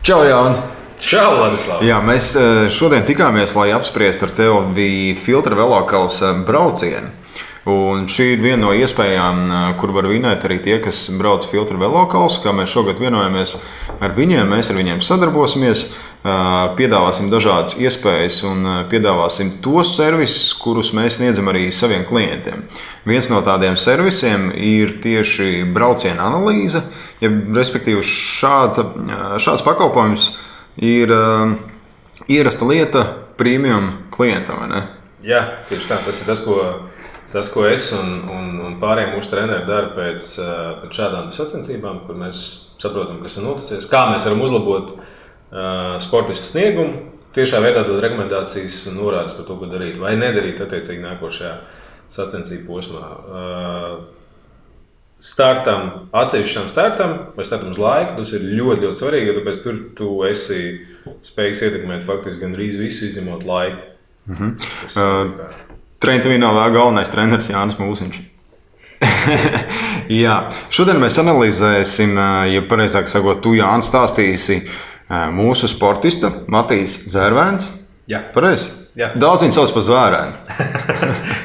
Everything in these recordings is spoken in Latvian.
Čau, Jāni! Čau, Ladislav! Jā, mēs šodien tikāmies, lai apspriestu ar tevi Filtra velokausa braucienu. Un šī ir viena no iespējām, kur var vinēt arī tie, kas brauc Filtra velokausu. Kā mēs šogad vienojamies ar viņiem, mēs ar viņiem sadarbosimies, piedāvāsim dažādas iespējas un piedāvāsim tos servisus, kurus mēs sniedzam arī saviem klientiem. Viens no tādiem servisiem ir tieši brauciena analīze, ja, respektīvi šāds pakalpojums ir ierasta lieta premium klientam, vai ne? Jā, tieši tā, tas, ko es un pārējiem mūsu treneri dara pēc šādām sacensībām, kur mēs saprotam, kas ir noticis, kā mēs varam uzlabot sportistu sniegumu, tiešā veidā dot rekomendācijas un norādes par to, ko darīt vai nedarīt attiecīgi nākošajā sacensību posmā. Atsevišķam startam vai startam uz laiku, tas ir ļoti, ļoti svarīgi, jo tāpēc tur tu esi spējīgs ietekmēt faktiski gandrīz visu, izņemot laiku. Trentuvīnā vēl galvenais treneris Jānis Mūsiņš. Jā, šodien mēs analizēsim, ja pareizāk sakot, tu Jānis stāstīsi mūsu sportista Matīs Zērvēns. Jā. Pareizi? Jā. Daudz viņu sauc par Zvērēnu.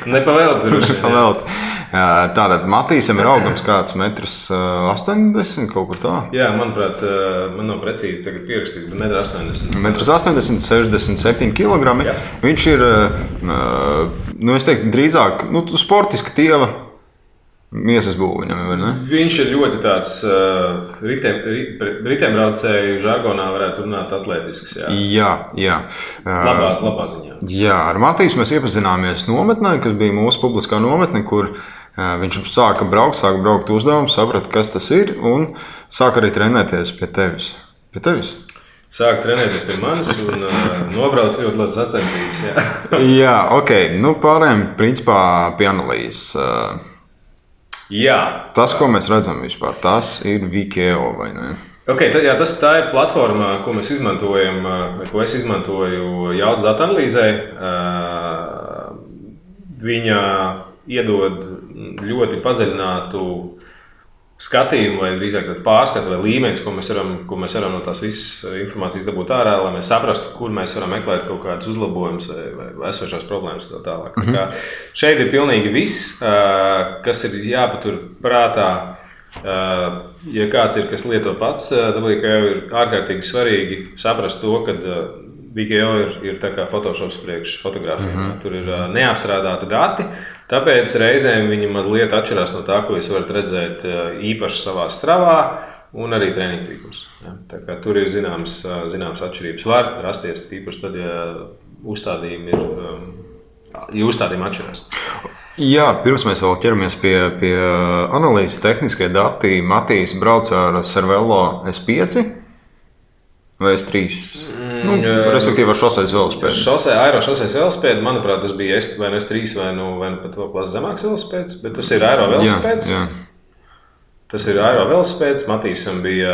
Nepavēlti. Tātad Matīsam ir augums kāds 1,80 m, kaut kur tā? Jā, manuprāt, man nav precīzi tagad pierakstīts, bet 1,80 m. 1,80 m, 67 kg. Jā. Viņš ir, es teiktu, drīzāk sportiska tieva miesas būviņam, vai ne? Viņš ir ļoti tāds ritembraucēju žargonā varētu runāt atletisks. Jā. Labā ziņā. Jā, ar Matīsu mēs iepazināmies nometnē, kas bija mūsu publiskā nometne, kur viņš sāka braukt uzdevumu, saprata, kas tas ir, un sāka arī trenēties pie tevis. Sāk trenēties pie manis un nobrauc ļoti labas sacensības. Jā, ok. Pārējām principā pie analīzes. Jā. Tas, ko mēs redzam vispār, tas ir Vikeo, vai ne? Okay, tā ir platforma, ko mēs izmantojam, ko es izmantoju jaudas datu analīzē. Viņa iedod ļoti padziļinātu skatījumu, vai drīzāk pārskatu vai līmenis, ko mēs varam no tās visas informācijas dabūt ārā, lai mēs saprastu, kur mēs varam meklēt kaut kādus uzlabojumus vai esošās problēmas tā tālāk. Šeit ir pilnīgi viss, kas ir jāpatur prātā. Ja kāds ir, kas lieto pats, tad ir ārkārtīgi svarīgi saprast to, ka Vikeo ir tā kā Photoshops priekš fotogrāfijām. Tur ir neapstrādāti dati, tāpēc reizēm viņi mazliet atšķirās no tā, ko jūs varat redzēt īpaši savā stravā un arī treniņu tīklus. Tur ir zināmas atšķirības. Var rasties īpaši tad, ja uzstādījumi atšķirās. Jā, pirms mēs vēl ķeramies pie analīzes tehniskie dati, Matīs brauca ar Cervelo S5 vai S3? Respektīvi ar šoseis velospēdu. Aerošoseis velospēdu, manuprāt, tas bija vai S3 vai pat vēl klasi zemāks velospēds, bet tas ir aero velospēds. Jā. Tas ir aero velospēds. Matīsam bija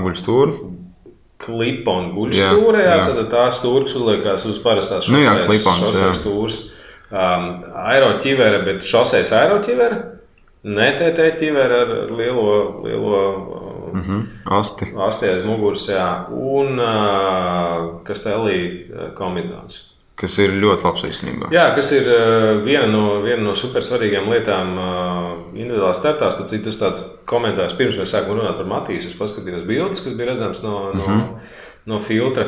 guļstūra. Klipa un guļstūra, tad tā stūra, kas uzliekās uz parastās šoseis stūras. Aeroķivere, bet šoseis aeroķivere, ne TT ķivere ar lielo asti aiz muguras, un Castelli kombinācijas. Kas ir ļoti labs īstenībā. Jā, kas ir viena no super svarīgām lietām individuālās startās. Tad tas tāds komentārs, pirms mēs sākam runāt par Matīsu, es paskatījos bildes, kas bija redzams no filtra.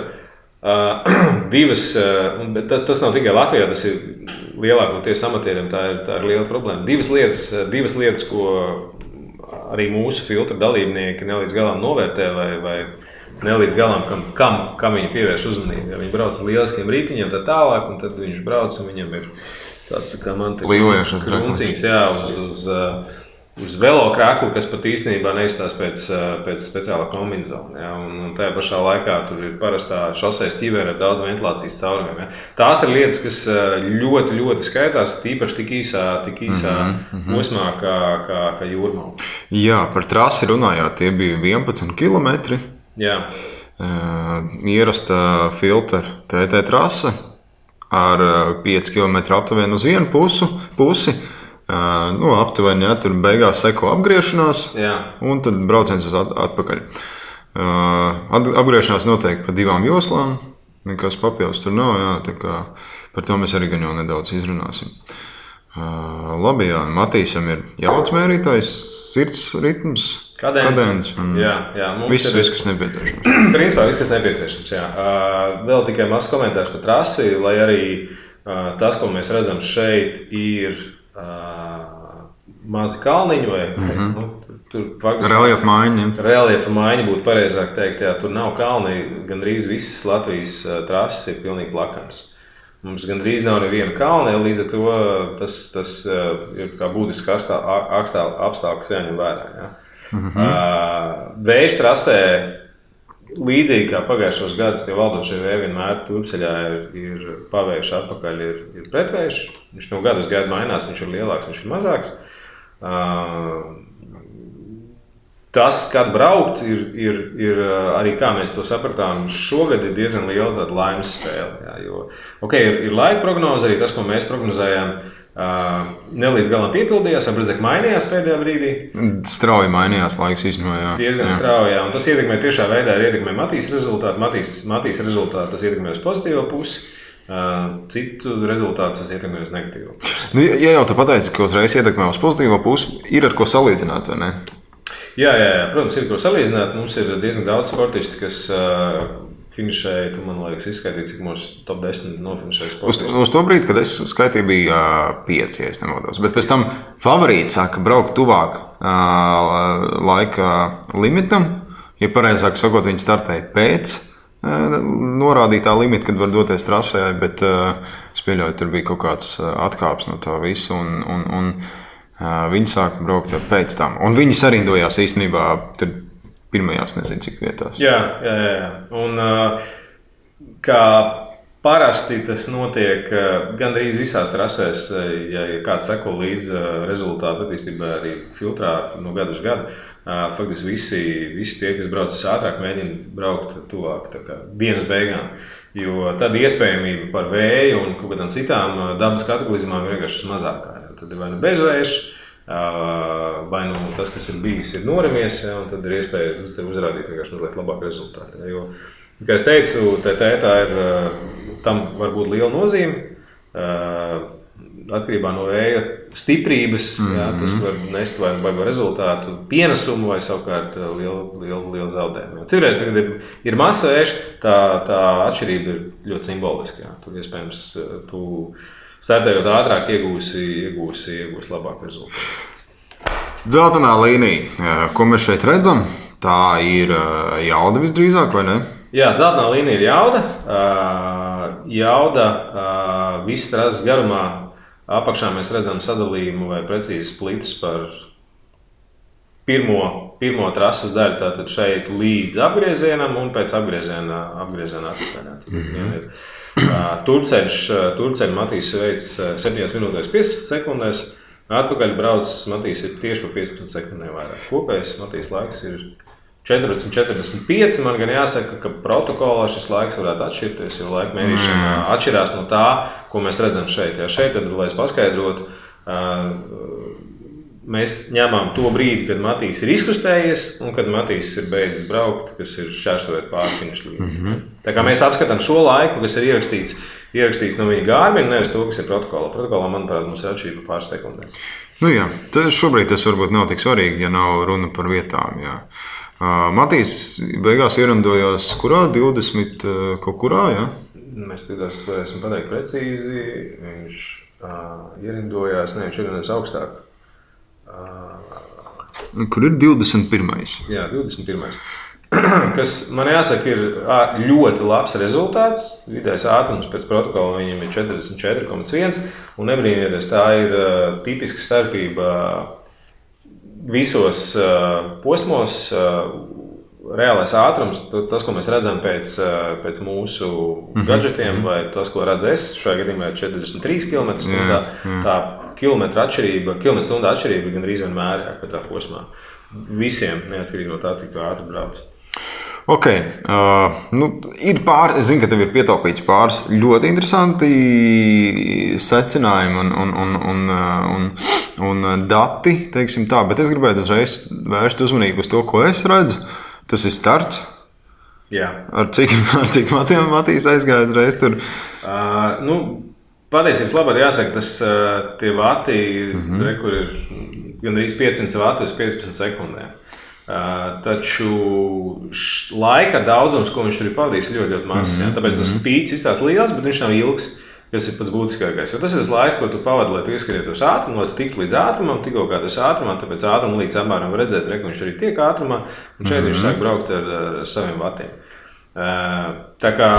Bet tas nav tikai Latvijā, tas ir lielākoties amatieriem, tā ir liela problēma. Divas lietas, ko arī mūsu filtra dalībnieki nelīdz galam novērtē vai nelīdz galam, kam viņi pievērš uzmanību. Ja viņi brauc ar lieliskiem rītiņiem tā tālāk, un tad viņš brauc, un viņam ir tāds tā kā man te kruncīgs, uz velokraklu, kas pat īstenībā neizstās pēc speciālā kombinācija. Un tajā pašā laikā tur ir parastā šoseis ķivere ar daudz ventilācijas caurumiem. Tās ir lietas, kas ļoti, ļoti skaitās, tīpaši tik īsā posmā kā jūrmala. Jā, par trasi runājot, tie bija 11 km. Jā. Ierasta filtra TT trase ar 5 km aptuveni uz vienu pusi. Aptuveni, tur beigās seko apgriešanās, un tad brauciens uz atpakaļ. Apgriešanās noteikti pa 2 joslām. Nekas papildus tur nav. Jā, tā kā par to mēs arī gan jau nedaudz izrunāsim. Labi, jā. Matīsam ir jaudas mērītājs, sirds ritms, kadence. Jā, mums viss, kas nepieciešams. Principā viss, kas nepieciešams, jā. Vēl tikai mazs komentārs par trasi, lai arī tas, ko mēs redzam šeit, ir mazi kalniņi vai reliefa maiņa. Reliefa maiņa būtu pareizāk teikt, jā, tur nav kalni, gandrīz visas Latvijas trases ir pilnīgi plakams. Mums gandrīz nav neviena kalna, līdz ar to tas ir kā būtiski apstākļus jāņem vērā. Ja? Vēju trasē, līdzīgi kā pagājušos gadus, tie valdošie vēji vienmēr turpceļā ir pavējuši atpakaļ, ir pretvējš. Viņš no gadu uz gadu mainās, viņš ir lielāks, viņš ir mazāks. Tas, kad braukt, ir arī, kā mēs to sapratām, šogad ir diezgan liela tāda laimes spēle. Jā, jo, ir laika prognoze, arī tas, ko mēs prognozējām, nelīdz galam piepildījās, vai redzēt, mainījās pēdējā brīdī. Strauji mainījās laiks īstenībā. Diezgan strauji, jā. Un tas ietekmē tiešā veidā, ietekmē Matīs rezultātu. Matīs rezultātu tas ietekmē uz pozitīvo pusi. Citu rezultātu tas ietekmē uz negatīvo pusi. Nu, ja jau tu pateici, ka uzreiz ietekmē uz pozitīvo pusi, ir ar ko salīdzināt, vai ne? Jā, protams, ir ko salīdzināt. Mums ir diezgan daudz sportisti, kas finišēja. Tu man liekas, izskaitīja, cik mūsu top 10 nofinišēja sportisti. Uz to brīdi, kad es skaitīju, bija 5, ja es nemaldos. Bet pēc tam favorīti sāka braukt tuvāk laika limitam. Ja pareizāk sakot, viņi startēja pēc norādītā limita, kad var doties trasē, bet es pieļauju, tur bija kaut kāds atkāps no tā visu. Un viņi sāka braukt jau pēc tam. Un viņi sarindojās īstenībā pirmajās, nezinu, cik vietās. Jā. Un kā parasti tas notiek gandrīz visās trasēs, ja kāds seko līdz rezultātu attīstībai arī filtrā no gadu uz gadu, faktiski visi tie, kas brauc ātrāk, mēģina braukt tuvāk dienas beigām. Jo tad iespējamība par vēju un kaut kādām citām dabas kataklizmām ir vienkārši mazākā. Tad ir vai nu bezvējš, vai nu tas, kas ir bijis, ir norimies, un tad ir iespēja uz tevi uzrādīt vienkārši mazliet labāku rezultātu. Jo, kā es teicu, tā ir, tam var būt liela nozīme. Atkarībā no vēja stiprības, tas var nest vai rezultātu pienesumu vai savukārt lielu zaudējumu. Citreiz, kad ir masa vējš, tā atšķirība ir ļoti simboliska. Jā. Tur iespējams tu startējot ātrāk iegūsi labāku rezultātu. Dzeltenā līnija, ko mēs šeit redzam, tā ir jauda visdrīzāk, vai ne? Jā, dzeltenā līnija ir jauda. Jauda viss trases garumā. Apakšā mēs redzam sadalījumu vai precīzi splitus par pirmo trases daļu, tātad šeit līdz apgriezienam un pēc apgrieziena atpakaļ. Turceļu Matīs veids 7 minūtēs 15 sekundēs, atpakaļ brauc Matīs ir tieši pa 15 sekundēm vairāk. Kopējais Matīs laiks ir 14:45. Man gan jāsaka, ka protokolā šis laiks varētu atšķirties, jo laika mērīšana atšķirās no tā, ko mēs redzam šeit. Ja šeit, tad, lai es paskaidrotu, mēs ņemam to brīdi, kad Matīs ir izkustējies un kad Matīs ir beidzis braukt, kas ir šķērsojot pāri finiša līniju. Tā kā mēs apskatām šo laiku, kas ir ierakstīts no viņa Garmin, nevis to, kas ir protokolā. Protokolā, manuprāt, mums ir atšķirība pāris sekundēm. Nu jā, šobrīd tas varbūt nav tik svarīgi, ja nav runa par vietām. Jā. Matīs beigās ierindojās kurā? 20 kaut kurā, jā? Mēs tādās varēsim pateikt precīzi. Viņš ierindojās, viņš ierindojās augstāk. Kur ir 21. Jā, 21. Kas man jāsaka ir ļoti labs rezultāts. Vidējais ātrums pēc protokola viņam ir 44,1. Un nebrīnieties, tā ir tipiska starpība visos posmos. Reālais ātrums, tas, ko mēs redzam pēc mūsu gadžetiem, vai tas, ko redzu es, šajā gadījumā ir 43 km/h. Tā kilometra stundā atšķirība ir gandrīz vienmēr katrā posmā. Visiem, neatkarīgi no tā, cik ātri brauc. Ok, ir pāris, es zinu, ka tev ir pietaupīts pāris ļoti interesanti secinājumi un dati, teiksim tā, bet es gribētu uzreiz vērst uzmanību uz to, ko es redzu. Tas ir starts. Jā. Ar cik matiem Matīs aizgāja uzreiz tur? Patiesības labāk jāsaka, tas tie vati, kur ir gandrīz 500 vati uz 15 sekundēm. Taču laika daudzums, ko viņš tur ir pavadījis, ļoti, ļoti mazs. Tāpēc tas spīdis izstāsta liels, bet viņš nav ilgs, kas ir pats būtiskākais. Jo tas ir tas laiks, ko tu pavadi, lai tu ieskrietos ātrumu, lai tu tiktu līdz ātrumam, tikko kā tas ātrumā, tāpēc ātrumu līdz apmēram redzēt, ka viņš arī tiek ātrumā, un šeit viņš sāk braukt ar saviem vatiem. Tā kā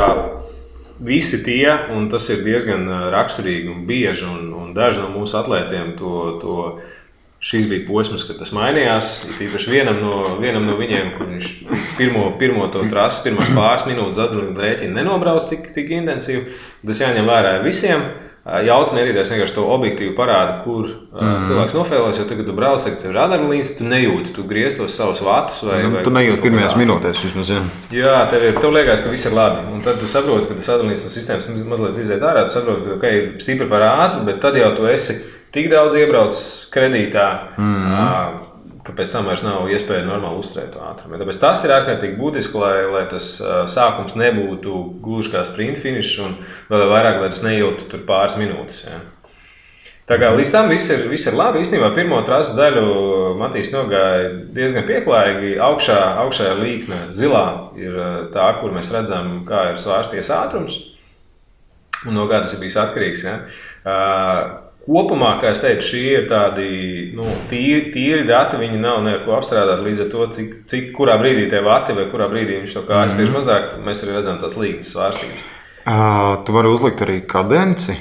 visi tie, un tas ir diezgan raksturīgi un bieži, un daži no mūsu atlētiem šis bija posms, kad tas mainījās. Īpaši vienam no viņiem, kur viņš pirmo to trasi, pirmās pāris minūtes adrenalīna rēķina nenobrauc tik intensīvi. Tas jāņem vērā visiem. Jauts mērītājs vienkārši to objektīvu parāda, kur cilvēks nofēlojas, jo tagad tu brauc, tagad tev ir adrenalīns, tu nejūti, tu griez tos savus vatus. Tu nejūti pirmajās minūtēs vismaz, jā. Jā, tev liekas, ka viss ir labi. Un tad tu saproti, ka tas adrenalīns no sistēmas mazliet iziet ārā, tu saproti, ka stipri par ātru, bet tad jau tu esi tik daudz iebraucis kredītā, ka pēc tam vairs nav iespēja normāli uzturēt to ātrumu. Tāpēc tas ir ārkārtīgi būtiski, lai tas sākums nebūtu gluži kā sprint finišs un vēl vairāk, lai tas neilgtu tur pāris minūtes. Ja. Tā kā līdz tam viss ir labi. Īstenībā pirmo trases daļu Matīs nogāja diezgan pieklājīgi. Augšā līkne zilā ir tā, kur mēs redzam, kā ir svārsties ātrums un no kā tas ir bijis atkarīgs. Ja. Kopumā, kā es teicu, šie ir tādi tīri dati, viņi nav neko apstrādāti līdz ar to, cik kurā brīdī tie vati vai kurā brīdī viņš to kājas spiež mazāk, mēs arī redzam tās līknes svārstīgas. Tu vari uzlikt arī kadenci?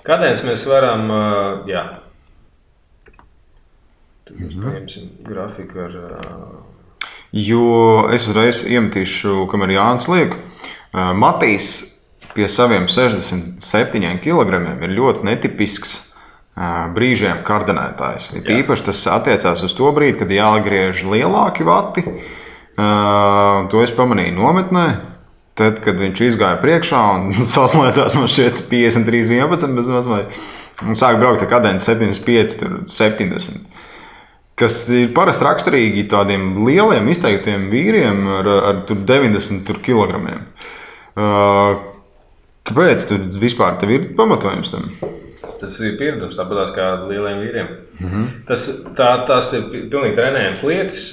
Kadenci mēs varam, jā. Tad mēs paņemsim grafiku ar... Jo es uzreiz iemetīšu, kamēr Jānis liek, Matīs pie saviem 67 kilogramiem ir ļoti netipisks brīžiem kardanētājs. Īpaši tas attiecās uz to brīdi, kad jāgriež lielāki vati. To es pamanīju nometnē. Tad, kad viņš izgāja priekšā un saslēdzās man šeit 53-11 bez mazliet, un sāk braukt ar kadenci 75-70. Kas ir parasti raksturīgi tādiem lieliem izteiktiem vīriem ar 90 kilogramiem. Kāpēc vispār tev ir pamatojums tam? Tas ir pieredums, tāpatās kā lieliem vīriem. Tas ir pilnīgi trenējams lietas.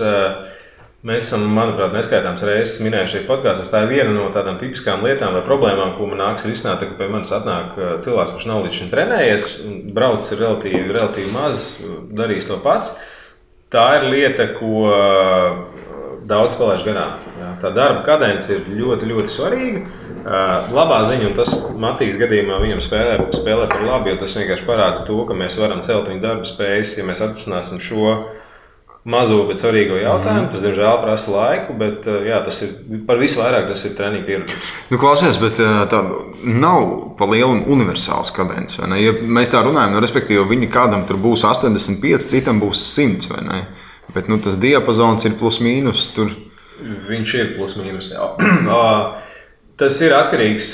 Mēs esam, manuprāt, neskaitāms reizes minējuši šeit podkāstos. Tā ir viena no tādām tipiskām lietām vai problēmām, ko man nāks risināt, ka pie manis atnāk cilvēks, kurš nav līdz šim trenējies, braucis ir relatīvi maz, darīs to pats. Tā ir lieta, ko daudz palaiž garām. Tā darba kadence ir ļoti, ļoti svarīga. Labā ziņa, un tas Matīs gadījumā viņam spēlē par labu, jo tas vienkārši parāda to, ka mēs varam celt viņa darba spējas, ja mēs atrisināsim šo mazo, bet svarīgo jautājumu. Tas, diemžēl, prasa laiku, bet jā, tas ir par visu vairāk, tas ir treniņu pieredums. Klausies, bet tā nav pa lielu universāls kadence, vai ne? Ja mēs tā runājam, respektīvi, viņi kādam tur būs 85, citam būs 100, vai ne? Bet tas diapazons ir plus mīnus tur. Viņš ir plus mīnus, jā. Tas ir atkarīgs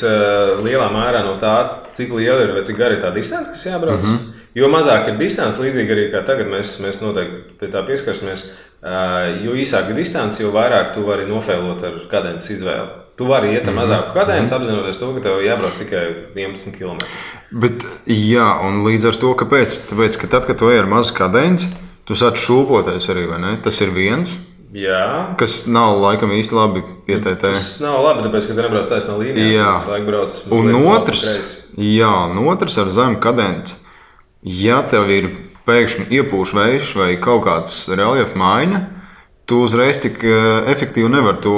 lielā mērā no tā, cik liela ir vai cik gara ir tā distance, kas jābrauc. Jo mazāk ir distance, līdzīgi arī kā tagad mēs noteikti pie tā pieskarsimies, jo īsāka distance, jo vairāk tu vari nofēlot ar kadences izvēli. Tu vari iet ar mazāku kadenci, apzinoties to, ka tev jābrauc tikai 11 km. Bet jā, un līdz ar to, kāpēc? Tāpēc, ka tad, kad tu ej ar mazu kadenci, tu sāc šūpoties arī, vai ne? Tas ir viens. Jā. Kas nav laikam īsti labi pietētē. Tas nav labi, tāpēc, ka tu nebrauc taisnā līnijā. Un otrs ar zemu kadenci. Ja tev ir pēkšņi iepūš vējš vai kaut kāds reljefa maiņa, tu uzreiz tik efektīvi nevar to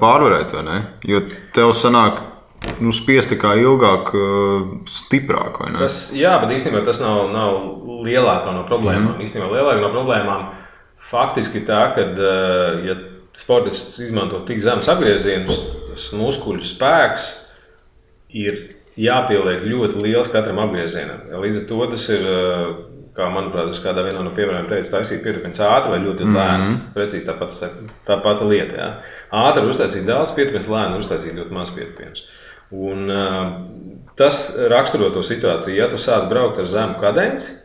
pārvarēt, vai ne? Jo tev sanāk spiesti kā ilgāk, stiprāk, vai ne? Jā, bet īstenībā tas nav lielākā no problēmām. Īstenībā lielākā no problēmām faktiski tā, ka, ja sportists izmanto tik zemes apgriezienus, tas muskuļu spēks ir jāpieliek ļoti liels katram apgriezienam. Līdz ar to tas ir, kā manuprāt, kādā vienā no piemēriem teica, taisīt pieturpins ātri vai ļoti lēni. Precīzi tā pati lieta. Jā. Ātri uztaisīt daudz pieturpins, lēni uztaisīt ļoti maz pieturpins. Un tas raksturo to situāciju. Ja tu sāc braukt ar zemu kadenci,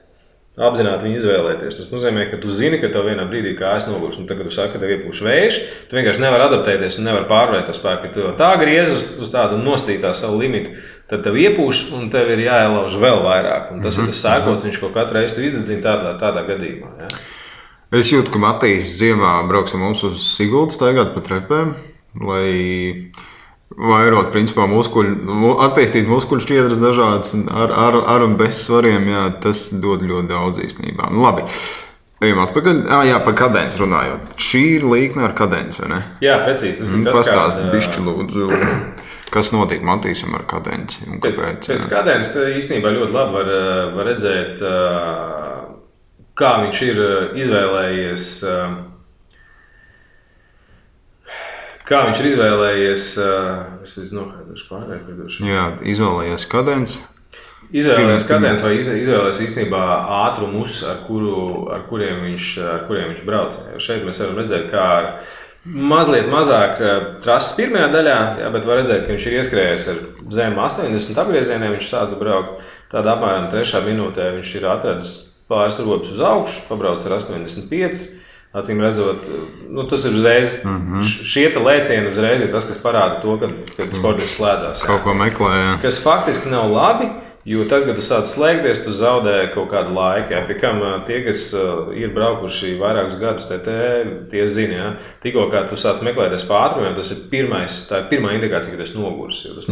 apzināti viņu izvēlēties. Tas nozīmē, ka tu zini, ka tev vienā brīdī kājas nogurs. Un tagad, kad tu saki, ka tev iepūš vējš, tu vienkārši nevari adaptēties un nevari pārvarēt to spēku. Ja tu tā griez uz tādu nostītā savu limitu, tad tev iepūš un tev ir jāielauž vēl vairāk. Un tas ir tas sēkots, viņš kaut katru reizi izdedzina tādā gadījumā. Ja? Es jūtu, ka Matīs ziemā brauks ar mums uz Sigultu staigāt pa trepēm, lai vairot, principā, attīstīt muskuļu šķiedras dažādas ar un bez svariem, jā, tas dod ļoti daudz īstenībā. Nu, labi, ejam atpakaļ. Jā, par kadenci runājot. Šī ir līkne ar kadenci, vai ne? Jā, precīzi. Tas ir tas, pastāst bišķi lūdzu, kas notiek Matīsam ar kadenci un kāpēc. Pēc kadenci īstenībā ļoti labi var redzēt, kā viņš ir izvēlējies. Kā viņš ir izvēlējies, Jā, izvēlējies kadenci. Izvēlējies kadenci vai izvēlējies īstenībā ātrumus, ar kuriem viņš brauc. Šeit mēs varam redzēt, kā ar mazliet mazāk trases pirmajā daļā, jā, bet var redzēt, ka viņš ir ieskrējies ar zem 80 apgriezieniem, viņš sāca braukt. Tādā apmēram 3. minūtē viņš ir atradis pāris robus uz augšu, pabrauc ar 85. Acīm redzot, tas ir uzreiz, šie lēcieni uzreiz ir tas, kas parāda to, kad sportists slēdzās. Kaut ko meklē, jā. Kas faktiski nav labi, jo tad, kad tu sāc slēgties, tu zaudē kaut kādu laiku. Jā. Pie kam tie, kas ir braukuši vairākus gadus, tie zina, jā. Tikko kā tu sāc meklēties pa ātrumiem, tā ir pirmā indikācija, ka tu esi noguris. Tu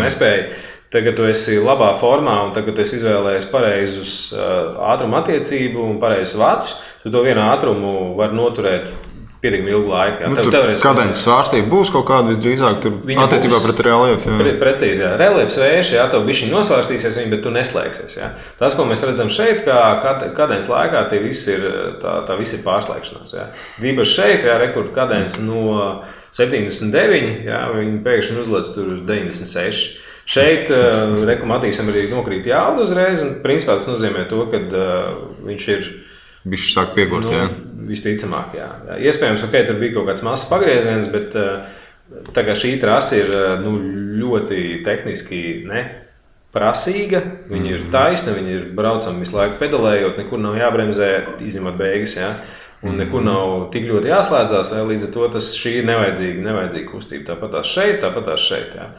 nespēji. Tagad tu esi labā formā un tagad tu esi izvēlējies pareizus ātruma attiecību un pareizus vatus, tu to vienu ātrumu var noturēt pietiekami ilgu laiku. Kadences svārstība būs kaut kāda visdrīzāk tur attiecībā pret reliefu. Precīzi, jā. Reliefs vējš, jā, tev bišķiņ nosvārstīsies, bet tu neslēgsies. Jā. Tas, ko mēs redzam šeit, kā kadences laikā, tā viss ir pārslēgšanās. Jā. Dīpaši šeit, jā, rekord kadence no 79, jā, viņi pēkšņi uzlec tur uz 96. Šeit Matīsam arī nokrīt jauda uzreiz, un principā tas nozīmē to, ka viņš ir bišķi sāk piegurt, jā. Visticamāk, jā. Iespējams, tur bija kaut kāds mazs pagrieziens, bet tā kā šī trasa ir ļoti tehniski prasīga, viņa ir taisna, viņa ir braucama visu laiku pedalējot, nekur nav jābremzē, izņemot beigas, jā. Un nekur nav tik ļoti jāslēdzās, jā. Līdz ar to šī ir nevajadzīga kustība. Tāpat tās šeit, jā.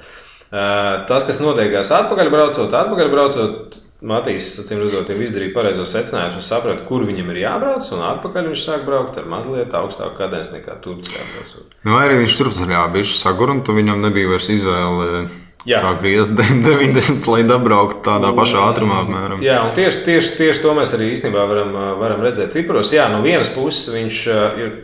Tas, kas notiekās atpakaļ braucot, Matīs, acīm redzot, jau izdarīja pareizo secinājumu un saprata, kur viņam ir jābrauc, un atpakaļ viņš sāk braukt ar mazliet augstāku kadenci nekā Turcijā braucot. Vai arī viņš turpceļā bišķi sagur, un tu viņam nebija vairs izvēle kā griezt 90, lai dabraukt tādā pašā ātrumā apmēram. Jā, un tieši to mēs arī īstenībā varam redzēt ciparos. Jā, no vienas puses viņš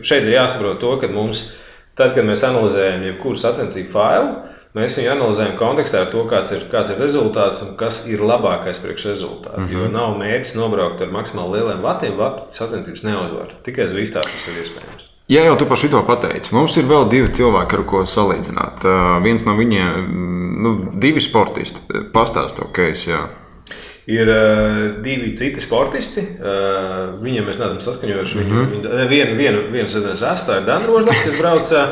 šeit ir jāsaprot to, ka mums, tad, kad mēs analizējam jebkuru sacensību failu, mēs viņu analizējam kontekstā ar to, kāds ir rezultāts un kas ir labākais priekš rezultātu. Jo nav mērķis nobraukt ar maksimāli lieliem vatiem, sacensības neuzvar. Tikai Zviftā tas ir iespējams. Jā, jau tu par šito pateici. Mums ir vēl 2 cilvēki, ar ko salīdzināt. Viens no viņiem, 2 sportisti. Pastāst to case, jā. Ir 2 citi sportisti. Viņiem mēs neesam saskaņojuši. Vienu sezonu astā ir Dana Rožlaka, kas brauca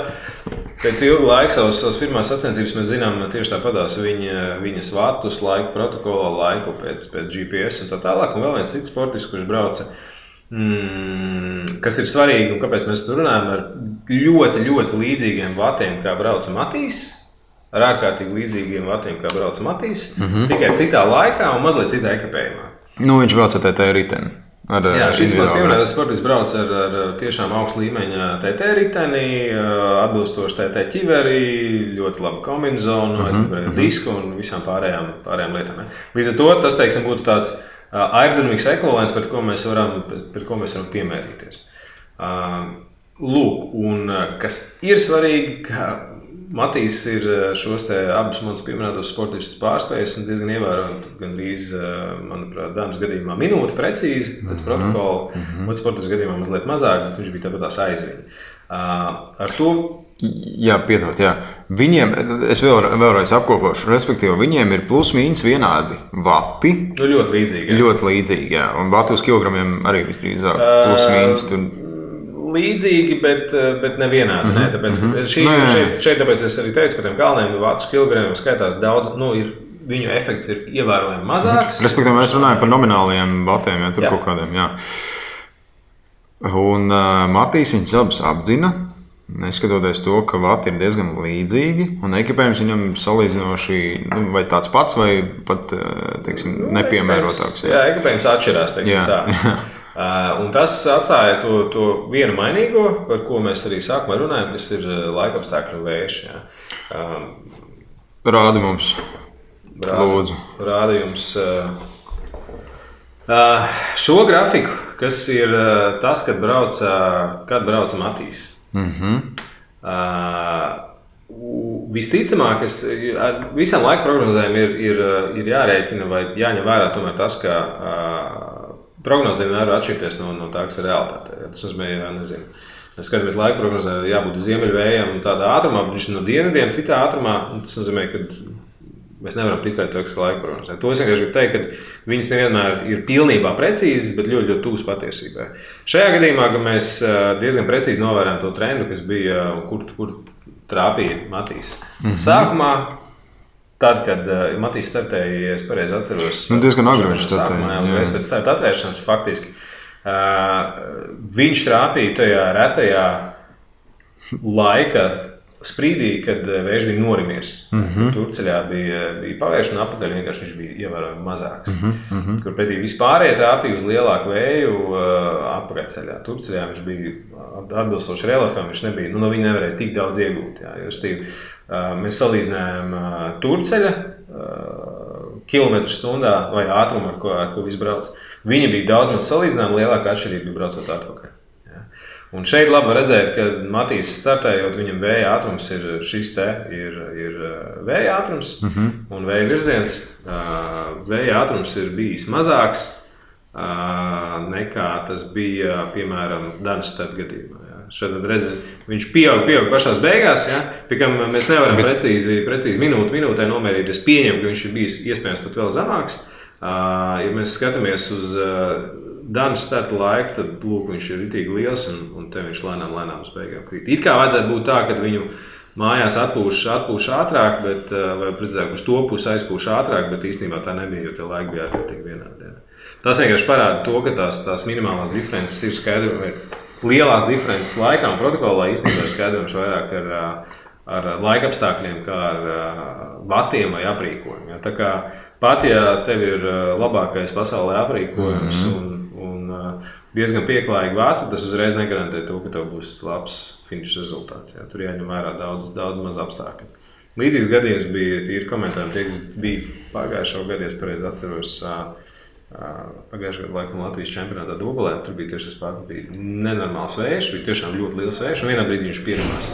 pēc ilga laika savas pirmās sacensības. Mēs zinām tieši tāpatās viņas vatus, laiku protokola, laiku pēc GPS un tā tālāk. Un vēl viens cits sportists, kurš brauca, kas ir svarīgi un kāpēc mēs tur runājam, ar ļoti, ļoti līdzīgiem vatiem, kā brauca Matīs. Ar ārkārtīgi līdzīgiem vatiem, kā brauca Matīs, tikai citā laikā un mazliet citā ekipējumā. Viņš brauca ar TT riteni. Jā, šis mans pieminētais sportists brauc ar tiešām augstu līmeņa TT riteni, atbilstoši TT ķiveri, ļoti labu kombinezonu, disku un visām pārējām lietām. Līdz ar to tas, teiksim, būtu tāds aerodinamikas ekvivalents, pret ko mēs varam piemērīties. Lūk, un kas ir svarīgi, ka Matīs ir šos abus manus pieminētos sportistus pārspējis un diezgan ievērojami, gandrīz, manuprāt, Danas gadījumā minūte precīzi pēc protokola, otrs sportists gadījumā mazliet mazāk, bet viņš bija tāpatās aiz viņu. Ar to... Jā, piedod, jā. Viņiem, es vēlreiz apkopošu, respektīvi, viņiem ir plus-mīnus vienādi vati. Ļoti līdzīgi. Ļoti līdzīgi, jā. Un vati uz kilogramiem arī visdrīzāk plus-mīnus tur... Līdzīgi, bet nevienādi. Tāpēc, šeit tāpēc es arī teicu, ka tiem galvenajiem vācu kilogramiem skaitās daudz, ir viņu efekts ir ievērojami mazāks. Respektīvi, mēs runājam par nomināliem vatiem, ja tur kaut kādiem, jā. Un Matīs viņus abas apdzina, neskatoties to, ka vati ir diezgan līdzīgi, un ekipējums viņam salīdzinoši vai tāds pats, vai pat, teiksim, nepiemērotāks. Jā, ekipējums atšķirās, teiksim tā. Un tas atstāja to vienu mainīgo, par ko mēs arī sākumā runājam, kas ir laikapstākļu vējš. Rādi mums, lūdzu. Rādi jums šo grafiku, kas ir tas, kad brauca Matīs. Visticamāk, visām laika prognozēm ir jārēķina vai jāņem vērā tomēr tas, ka prognozē vienmēr var atšķirties no tā, kas ir realitāte. Tas nozīmē, nezinu. Mēs skatāmies laika prognozē, jābūt ziemeļvējam un tādā ātrumā, bet viņš no dienvidiem citā ātrumā. Tas nozīmē, ka mēs nevaram ticēt to, kas ir laika prognozē. To es vienkārši gribu teikt, ka viņas nevienmēr ir pilnībā precīzas, bet ļoti, ļoti tuvas patiesībai. Šajā gadījumā mēs diezgan precīzi novērojam to trendu, kas bija, kur trāpīja Matīs. Sākumā, tad, kad Matīs startēja, ja es pareizi atceros, diezgan agri viņš startēja. Uzreiz pēc starta atvēršanas faktiski. Viņš trāpīja tajā retajā laika sprīdī, kad vējš bija norimies. Turceļā bija pavērš un apakaļ vienkārši viņš bija ievērojami mazāks. Kur pretī vispārējie trāpīja uz lielāku vēju apakaļceļā. Turceļā viņš bija atbilstoši reliefam, viņš nebija, no viņa nevarēja tik daudz iegūt. Mēs salīdzinājām Turceļa kilometru stundā vai ātrumu, ar ko viss brauc. Viņa bija daudz maz salīdzinājuma, lielāka atšķirība bija braucot atpakaļ. Un šeit labi redzēt, ka Matīs startējot, viņam vēja ātrums ir šis te, ir vēja ātrums un vēja virziens. Vēja ātrums ir bijis mazāks nekā tas bija, piemēram, Danas starta gadījumā. Šeit redzēt, viņš pieaug pašās beigās, pie kam mēs nevaram precīzi minūtē nomērīt. Es pieņemu, ka viņš ir bijis iespējams pat vēl zemāks. Ja mēs skatāmies uz Danas starta laiku, tad lūk, viņš ir ritīgi liels un te viņš lēnām uz beigām krīt. It kā vajadzētu būt tā, ka viņu mājās atpūš ātrāk, bet, vai precīzāk uz to pusi aizpūš ātrāk, bet īstenībā tā nebija, jo tie laiki bija ārkārtīgi vienādi. Tas vienkārši parāda to, ka tās minimālās diferences ir skaidrojami. Lielās diferences laikā un protokolā īstenībā ir skaidrojams vairāk ar laikapstākļiem, kā ar vatiem vai aprīkojumu. Tā kā pat, ja tev ir labākais pasaulē aprīkojums un diezgan pieklājīgi vati, tas uzreiz negarantē to, ka tev būs labs finiša rezultāts. Tur jāņem vērā daudz maz apstākļu. Līdzīgs gadījums bija tīri komentāriem, tie, kas bija pagājušo gadu, es pareizi atceros, pagājušajā gadā laikam Latvijas čempionātā Dobelē, tur bija tieši tas pats, bija nenormāls vējš, bija tiešām ļoti liels vējš, un vienā brīdī viņš pierimās.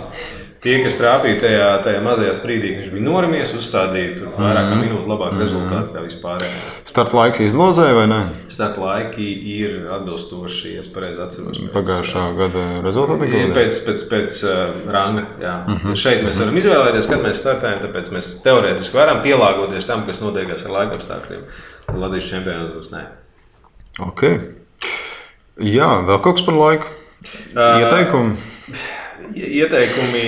Tie, kas trāpīja tajā mazajā sprīdī, viņš bija norimies, uzstādīja tur vairāk kā minūtu labāku rezultātu kā vispārējā. Starta laiks izlozēja vai ne? Starta laiki ir atbilstoši, ja es pareizi atceros. Pagājušā gada rezultāti? Pēc ranga, jā. Šeit mēs varam izvēlēties, kad mēs startējam, tāpēc mēs teorētiski varam pielāgoties tam, kas notiekās ar laikapstākļiem. Latvijas čempionātos nē. Ok. Jā, vēl kaut kas par laiku? Ieteikumi? Ieteikumi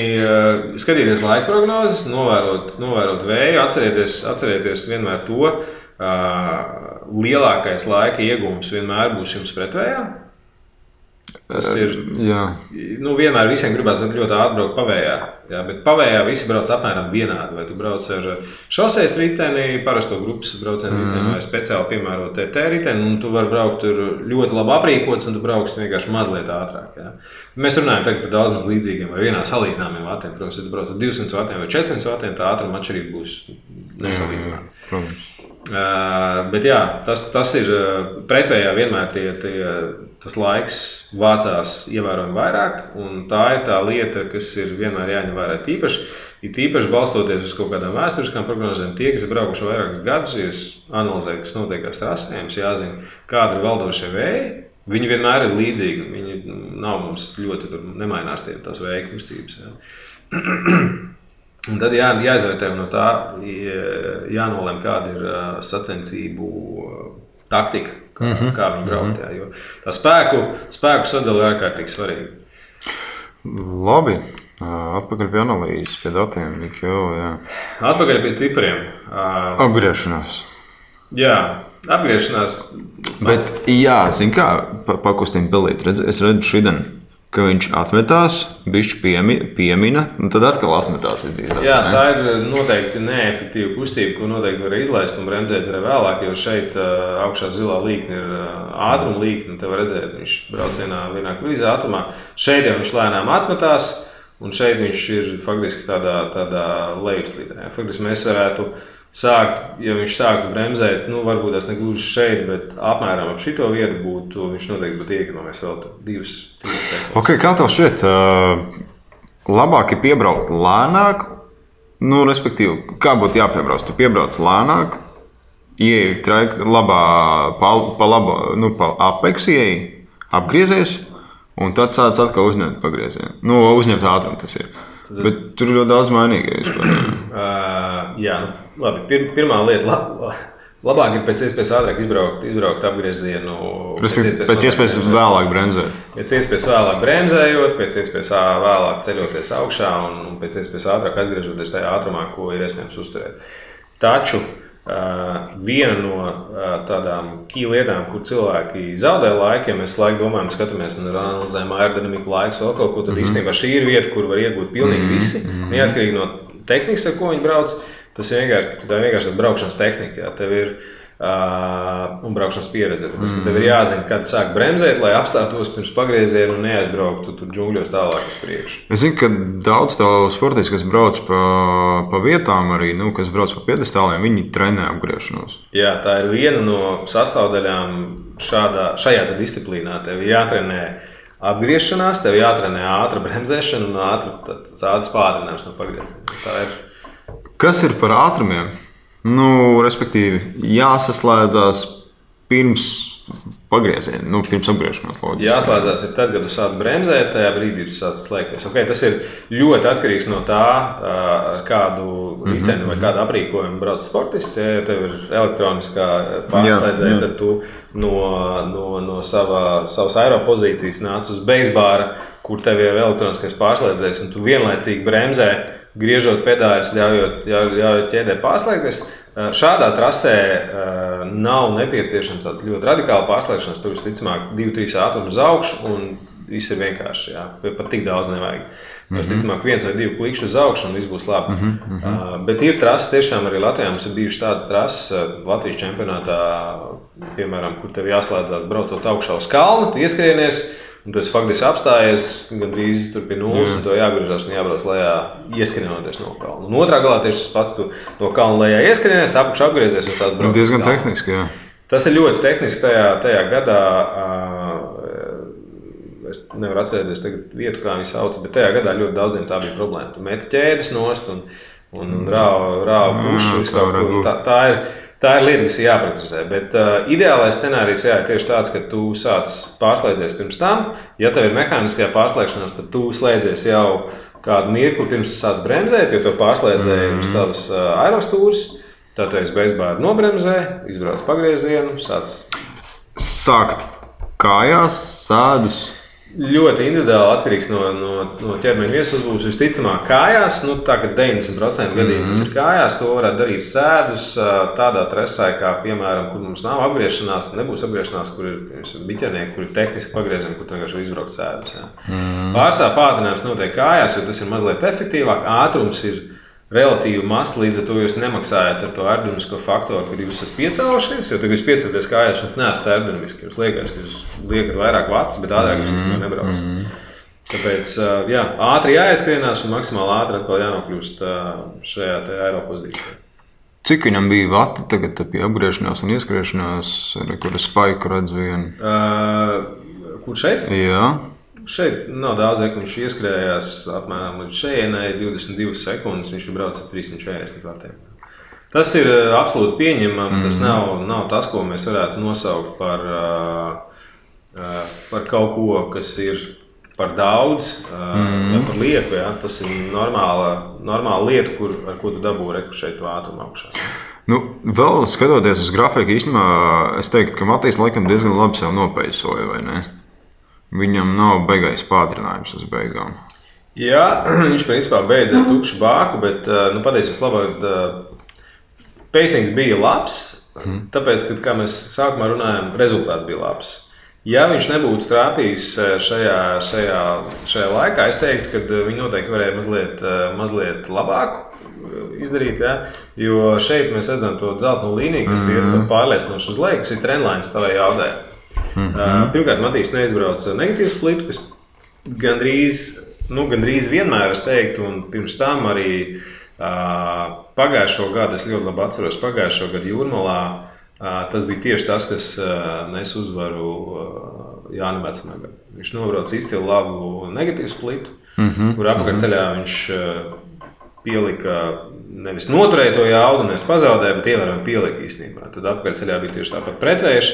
skatīties laika prognozes, novērot vēju, atcerieties vienmēr to, lielākais laika iegūms vienmēr būs jums pretvējā. Tas ir, vienmēr visiem gribās ļoti ātri braukt pavējā, bet pavējā visi brauc apmēram vienādi. Vai tu brauc ar šosejas riteni, parasto grupas braucienu riteni vai speciāli piemērot TT riteni, un tu vari braukt tur ļoti labi aprīkots, un tu brauks vienkārši mazliet ātrāk. Mēs runājam tagad par daudz maz līdzīgiem vai vienā salīdzināmiem vatiem. Protams, ja tu brauc ar 200 vatiem vai 400 vatiem, tā ātruma atšķirība būs nesalīdzināma. Bet jā, tas ir pretvējā vienmēr tas laiks vācās ievērojami vairāk, un tā ir tā lieta, kas ir vienmēr jāņem vērā tīpaši balstoties uz kaut kādām vēsturiskām prognozēm. Tie, kas ir braukuši vairākus gadus, ja analizēju, kas notiekās trasē, jums jāzina, kāda ir valdošie vēji. Viņi vienmēr ir līdzīgi, viņi nav mums ļoti nemainās tās vēja kustības. Un tad jāizvērtē no tā, jānolem, kāda ir sacensību taktika, kā viņi braukt. Jo tā spēku sadala ir ārkārtīgi svarīga. Labi. Atpakaļ pie analīzes, pie datiem. Atpakaļ pie cipriem. Apgriešanās. Jā, apgriešanās. Bet, zin kā, pakustīm pilīt. Es redzu šodien, ka viņš atmetās, bišķi piemina, un tad atkal atmetās. Jā, tā ir noteikti neefektīva kustība, ko noteikti var izlaist un bremzēt arī vēlāk, jo šeit augšā zilā līkne ir ātruma līkne, un te var redzēt, viņš brauc vienā krīzē ātrumā. Šeit jau viņš lēnām atmetās, un šeit viņš ir faktiski tādā lejupslīdē. Faktiski mēs varētu sākt, ja viņš sāktu bremzēt, varbūt tas negluži šeit, bet apmēram ap šito vietu viņš noteikti būtu iekonomies vēl 2-3 sekundes. Okay, kā tev šķiet, labāk ir piebraukt lēnāk, respektīvi, kā būtu jāpiebrauc? Tu piebrauc lēnāk, ieej trajektorī labā, pa apeksu ieej, apgriezies, un tad sāc atkal uzņemt pagriezienu. Uzņemt ātrumu tas ir. Bet tur ir ļoti daudz mainīgi. Jā, labi. Pirmā lieta, labāk ir pēc iespējas ātrāk izbraukt apgriezienu. Pēc iespējas vēlāk bremzēt. Pēc iespējas vēlāk bremzējot, pēc iespējas vēlāk ceļoties augšā un pēc iespējas ātrāk atgriežoties tajā ātrumā, ko ir iespējams uzturēt. Taču viena no tādām lietām, kur cilvēki zaudē laiku, ja mēs laiku domājam, skatāmies un analizējam aerodinamiku laikus vēl kaut ko, tad īstenībā šī ir vieta, kur var iegūt pilnīgi visi, neatkarīgi no tehnikas, ar ko viņi brauc. Tā ir vienkārši braukšanas tehnika. Jā. Tev ir un braukšanas pieredze. Tas, tev ir jāzina, kad sāk bremzēt, lai apstātos pirms pagrieziena un neaizbrauktu tur džungļos tālāk uz priekšu. Es zinu, ka daudz tādu sportistu, kas brauc pa vietām, arī kas brauc pa piedestāliem, viņi trenē apgriešanos. Jā, tā ir viena no sastāvdaļām šajā disciplīnā. Tev jātrenē apgriešanās, tev jātrenē ātra bremzēšana un ātras pātrinājums no pagrieziena. Kas ir par ātrumiem? Respektīvi, jāsaslēdzās pirms pagrieziena, pirms apgriešanās. Loģiski. Jāslēdzās ir tad, kad tu sāc bremzēt, tajā brīdī tu sāc slēgties. Okay, tas ir ļoti atkarīgs no tā, ar kādu riteni vai kādu aprīkojumu brauc sportists. Ja tev ir elektroniskā pārslēdzēja, tad tu no savas aeropozīcijas nāc uz beisbāra, kur tev ir elektroniskais pārslēdzējs, un tu vienlaicīgi bremzē, griežot pedāļus, ļaujot ķēdē pārslēgties. Šādā trasē nav nepieciešams tāds ļoti radikāli pārslēgšanas. Tur visticamāk 2-3 ātrumi uz augšu un viss ir vienkārši. Jā. Pat tik daudz nevajag. Visticamāk 1 vai 2 klikšķi uz augšu un viss būs labi. Bet ir trases, tiešām arī Latvijā mums ir bijušas tādas trases Latvijas čempionātā, piemēram, kur tev jāslēdzās braucot augšā uz kalnu, tu ieskrienies, un tu esi faktiski apstājies gandrīz tur pie nulles, un to jāgriežās un jābrauc lejā, ieskrienoties no kalna. Un otrā galā tieši tas pats, tu no kalna lejā ieskrienies, apakšā apgriezies un sāc braukt. Diezgan tehniski, jā. Tas ir ļoti tehniski tajā gadā. Es nevaru atcerēties tagad vietu, kā viņi sauc, bet tajā gadā ļoti daudziem tā bija problēma. Tu meti ķēdes nost un rāva pušu. Tā ir lieta, kas ir jāpraktizē. Bet ideālais scenārijs ir tieši tāds, ka tu sāc pārslēdzies pirms tam. Ja tev ir mehāniskajā pārslēgšanās, tad tu slēdzies jau kādu mirkli pirms tu sāc bremzēt, jo tu pārslēdzēji uz tavas aerostūras. Tad tu esi beisbāri nobremzē, izbrauc pagriezienu, sākt kājās, sēdus. Ļoti individuāli atkarīgs no ķermeņa viesuzbūves. Visticamāk, kājās, tā kā 90% gadījumos ir kājās, to varētu darīt sēdus tādā trasē, kā piemēram, kur mums nav apgriešanās, nebūs apgriešanās, kur ir biķernieki, kur ir tehniski pagriezieni, kur tu vienkārši izbraukt sēdus. Pārsvarā pātrinājums notiek kājās, jo tas ir mazliet efektīvāk, ātrums ir relatīvi mazs, līdz ar to jūs nemaksājat ar to aerodinamisko faktoru, kad jūs esat piecēlušies, jo tad jūs piecēlaties kājās, jūs neesat aerodinamiski. Jūs liekat, ka jūs liekat vairāk vatus, bet ātrāk jūs īstenībā nebraucat. Tāpēc ātri jāieskrienās un maksimāli ātri atkal jānokļūst šajā aeropozīcijā. Cik viņam bija vati tagad pie apgriešanās un ieskriešanās, kur es spaiku redzu vienu? Kur šeit? Jā. Šeit nav daudz, ka viņš ieskrējās apmēram līdz šejienai, 22 sekundes, viņš ir braucis ar 340 vatiem. Tas ir absolūti pieņemami, tas nav tas, ko mēs varētu nosaukt par kaut ko, kas ir par daudz vai par lieku. Ja? Tas ir normāla lieta, ar ko tu dabū reku šeit ātrumu augšā. Vēl skatoties uz grafiku, īstenībā es teiktu, ka Matīs laikam diezgan labi sev nopeisoja, vai ne? Viņam nav beigais pātrinājums uz beigām. Jā, viņš principā beidz ar tukšu bāku, bet patiesībā labāk pacings bija labs, tāpēc, ka, kā mēs sākumā runājām, rezultāts bija labs. Ja viņš nebūtu trāpījis šajā laikā, es teiktu, ka viņi noteikti varēja mazliet labāk izdarīt, ja? Jo šeit mēs redzam to dzelteno līniju, kas ir pārliecinoši uz leju, kas ir trendlines tavai jaudē. Pirmkārt, Matīs neizbrauca negatīvu splitu, kas gandrīz vienmēr es teiktu, un pirms tam arī pagājušo gadu, es ļoti labi atceros, pagājušo gadu Jūrmalā, tas bija tieši tas, kas nes uzvaru Jānim Vecmagam. Viņš nobrauca izcilu labu negatīvu splitu, kur apakaļceļā viņš pielika, nevis noturēja to jaudu, nevis pazaudēja, bet ievērojami pielika īstenībā. Tad apakaļceļā bija tieši tāpat pretvējuši,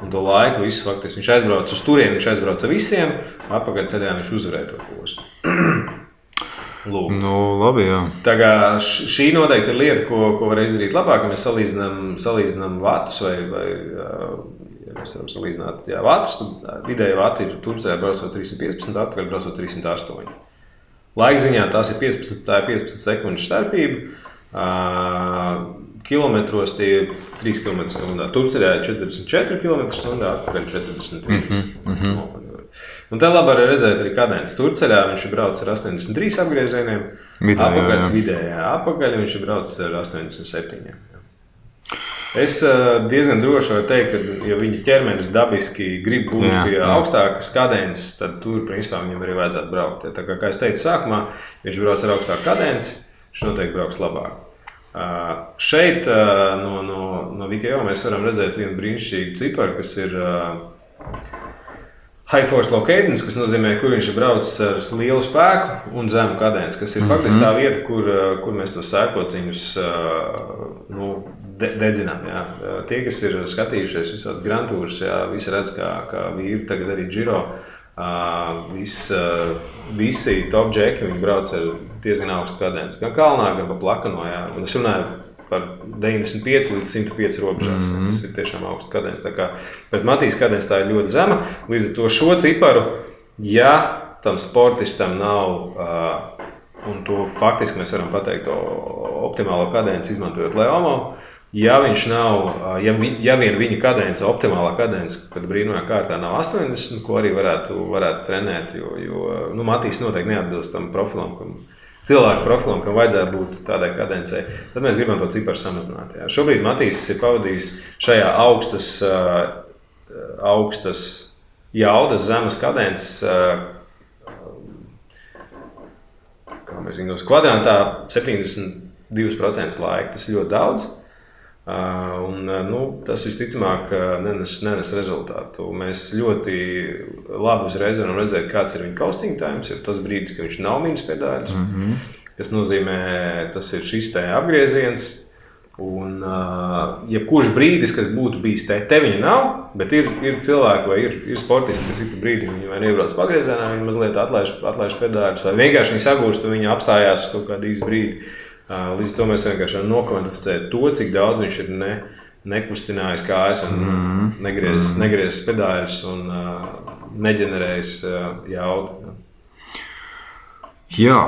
un to laiku visu faktiski viņš aizbrauca uz turieni, viņš aizbrauca visiem, apakaļceļā viņš uzvarēja to posmu. Lūk. Nu, labi, jā. Tā kā šī noteikti ir lieta, ko var izdarīt labāk, ja mēs salīdzinām vatus vai ja mēs varam salīdzināt vatus, tad vidēji vati ir Turcijā braucot 315, atpakaļ braucot 308. Laikziņā tās ir 15 sekundžu starpība, kilometros tie ir 3 km/h. Turcijā ir 44 km/h, atpakaļ 43. Un te labi arī redzēt arī kadence. Turceļā viņš ir braucis ar 83 apgriezieniem, vidējā apakaļ viņš ir braucis ar 87. Es diezgan droši varu teikt, ka ja viņa ķermenis dabiski grib būt pie augstākas kadences, tad tur principā viņam arī vajadzētu braukt. Tā kā es teicu sākumā, ja viņš brauc ar augstāku kadenci, viņš noteikti brauks labāk. Šeit no Vikeo mēs varam redzēt vienu brīnišķīgu ciparu, kas ir High Force Low Cadence, kas nozīmē, kur viņš ir braucis ar lielu spēku un zemu kadenci, kas ir faktiski tā vieta, kur mēs tos sērkociņus dedzinām. Jā. Tie, kas ir skatījušies visādas grantūras, visi redz, kā vīri tagad arī Giro, visi top džeki, viņi brauc ar diezgan augstu kadenci, gan kalnā, gan pa plakano. Jā. Un es runāju par 95 līdz 105 robežās. Tas ir tiešām augsts kadence. Bet Matīs kadence tā ir ļoti zema. Līdz ar to šo ciparu, ja tam sportistam nav, un to faktiski mēs varam pateikt, optimālo kadenci izmantojot Leomo, ja viņš nav, ja vien viņa kadence, optimālā kadence, kad brīnumā kārtā nav 80, ko arī varētu trenēt, jo Matīs noteikti neatbilst tam profilam, cilvēku profilam, kam vajadzētu būt tādai kadencei, tad mēs gribam to ciparu samazināt. Jā. Šobrīd Matīs ir pavadījis šajā augstas jaudas, zemes kadences, kā mēs zinām, kvadrantā 72% laika. Tas ir ļoti daudz. Tas visticamāk nenes rezultātu. Mēs ļoti labi uzreiz varam redzēt, kāds ir viņa coasting times, jo tas brīdis, ka viņš nav mīnus pedāļus. Tas nozīmē, tas ir šis te apgrieziens. Un jebkurš brīdis, kas būtu bijis te viņa nav, bet ir cilvēki vai ir sportisti, kas ir pa brīdi, viņi vai neiebrauc pagriezienā, viņi mazliet atlaiž pedāļus, vai vienkārši viņi sagūst, un viņi apstājās uz kaut kādu īsu brīdi. Līdz to mēs vienkārši varam nokvantificēt to, cik daudz viņš ir nekustinājis kājas un negriezis pedāļus un neģenerējis jaudu. Jā,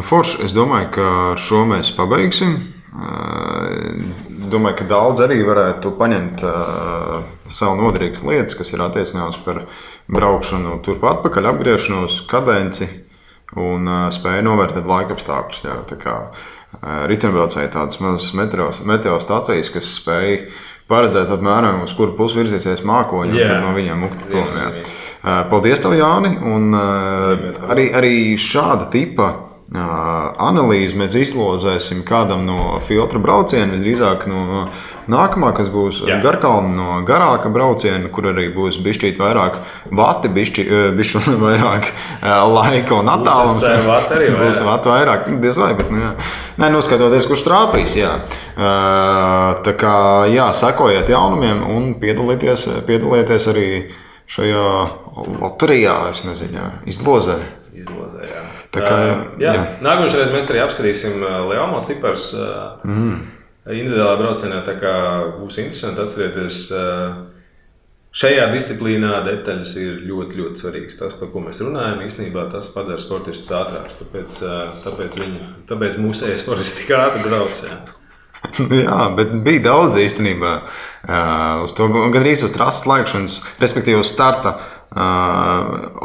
forši, es domāju, ka ar šo mēs pabeigsim. Domāju, ka daudz arī varētu paņemt savu noderīgas lietas, kas ir attiecināmas par braukšanu turpat atpakaļ, apgriešanos, kadenci un spēju novērtēt laikapstākļus. Jā, tā kā riteņbraucēji tādas mazas meteostacijas, kas spēj paredzēt apmēram, uz kuru pusi virzīsies mākoņi, un tad no viņiem mukt prom. Paldies tev, Jāni, un arī šāda tipa analīzi mēs izlozēsim kādam no filtra brauciena, visdrīzāk no nākamā, kas būs Garkalna, no garāka brauciena, kur arī būs bišķīt vairāk vati, bišķi vairāk laika un attālums. Būs vati vairāk, diez vai, bet noskatoties, kurš trāpīs, jā. Tā kā, sekojiet jaunumiem un piedalieties arī šajā loterijā, es nezinu, izlozē, jā. Nākamais mēs arī apskatīsim Leomo cipars individuālā braucienā, tā kā būs interesanti. Atcerieties, šajā disciplīnā detaļas ir ļoti, ļoti svarīgas. Tas, par ko mēs runājam, īstenībā tas padara sportistus ātrākus. Tāpēc mūsu e-sportisti tik ātri brauc. Jā, bet bija daudz īstenībā uz to, gandrīz uz trases laikšanas, respektīvi uz starta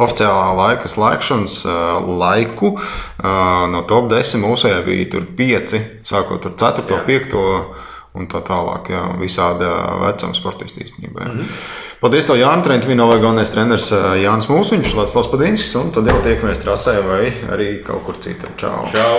oficiālā laika slēgšanas laiku. No top 10 mūsējā bija tur 5, sākot ar 4., 5. un tā tālāk. Jā, visāda vecuma sportisti īstenībā. Paldies tev, Jāni, Trentvīnovā galvenais treneris Jānis Mūsiņš, Vladislavs Padinskis, un tad jau tiekamies trasē vai arī kaut kur citur. Čau! Čau.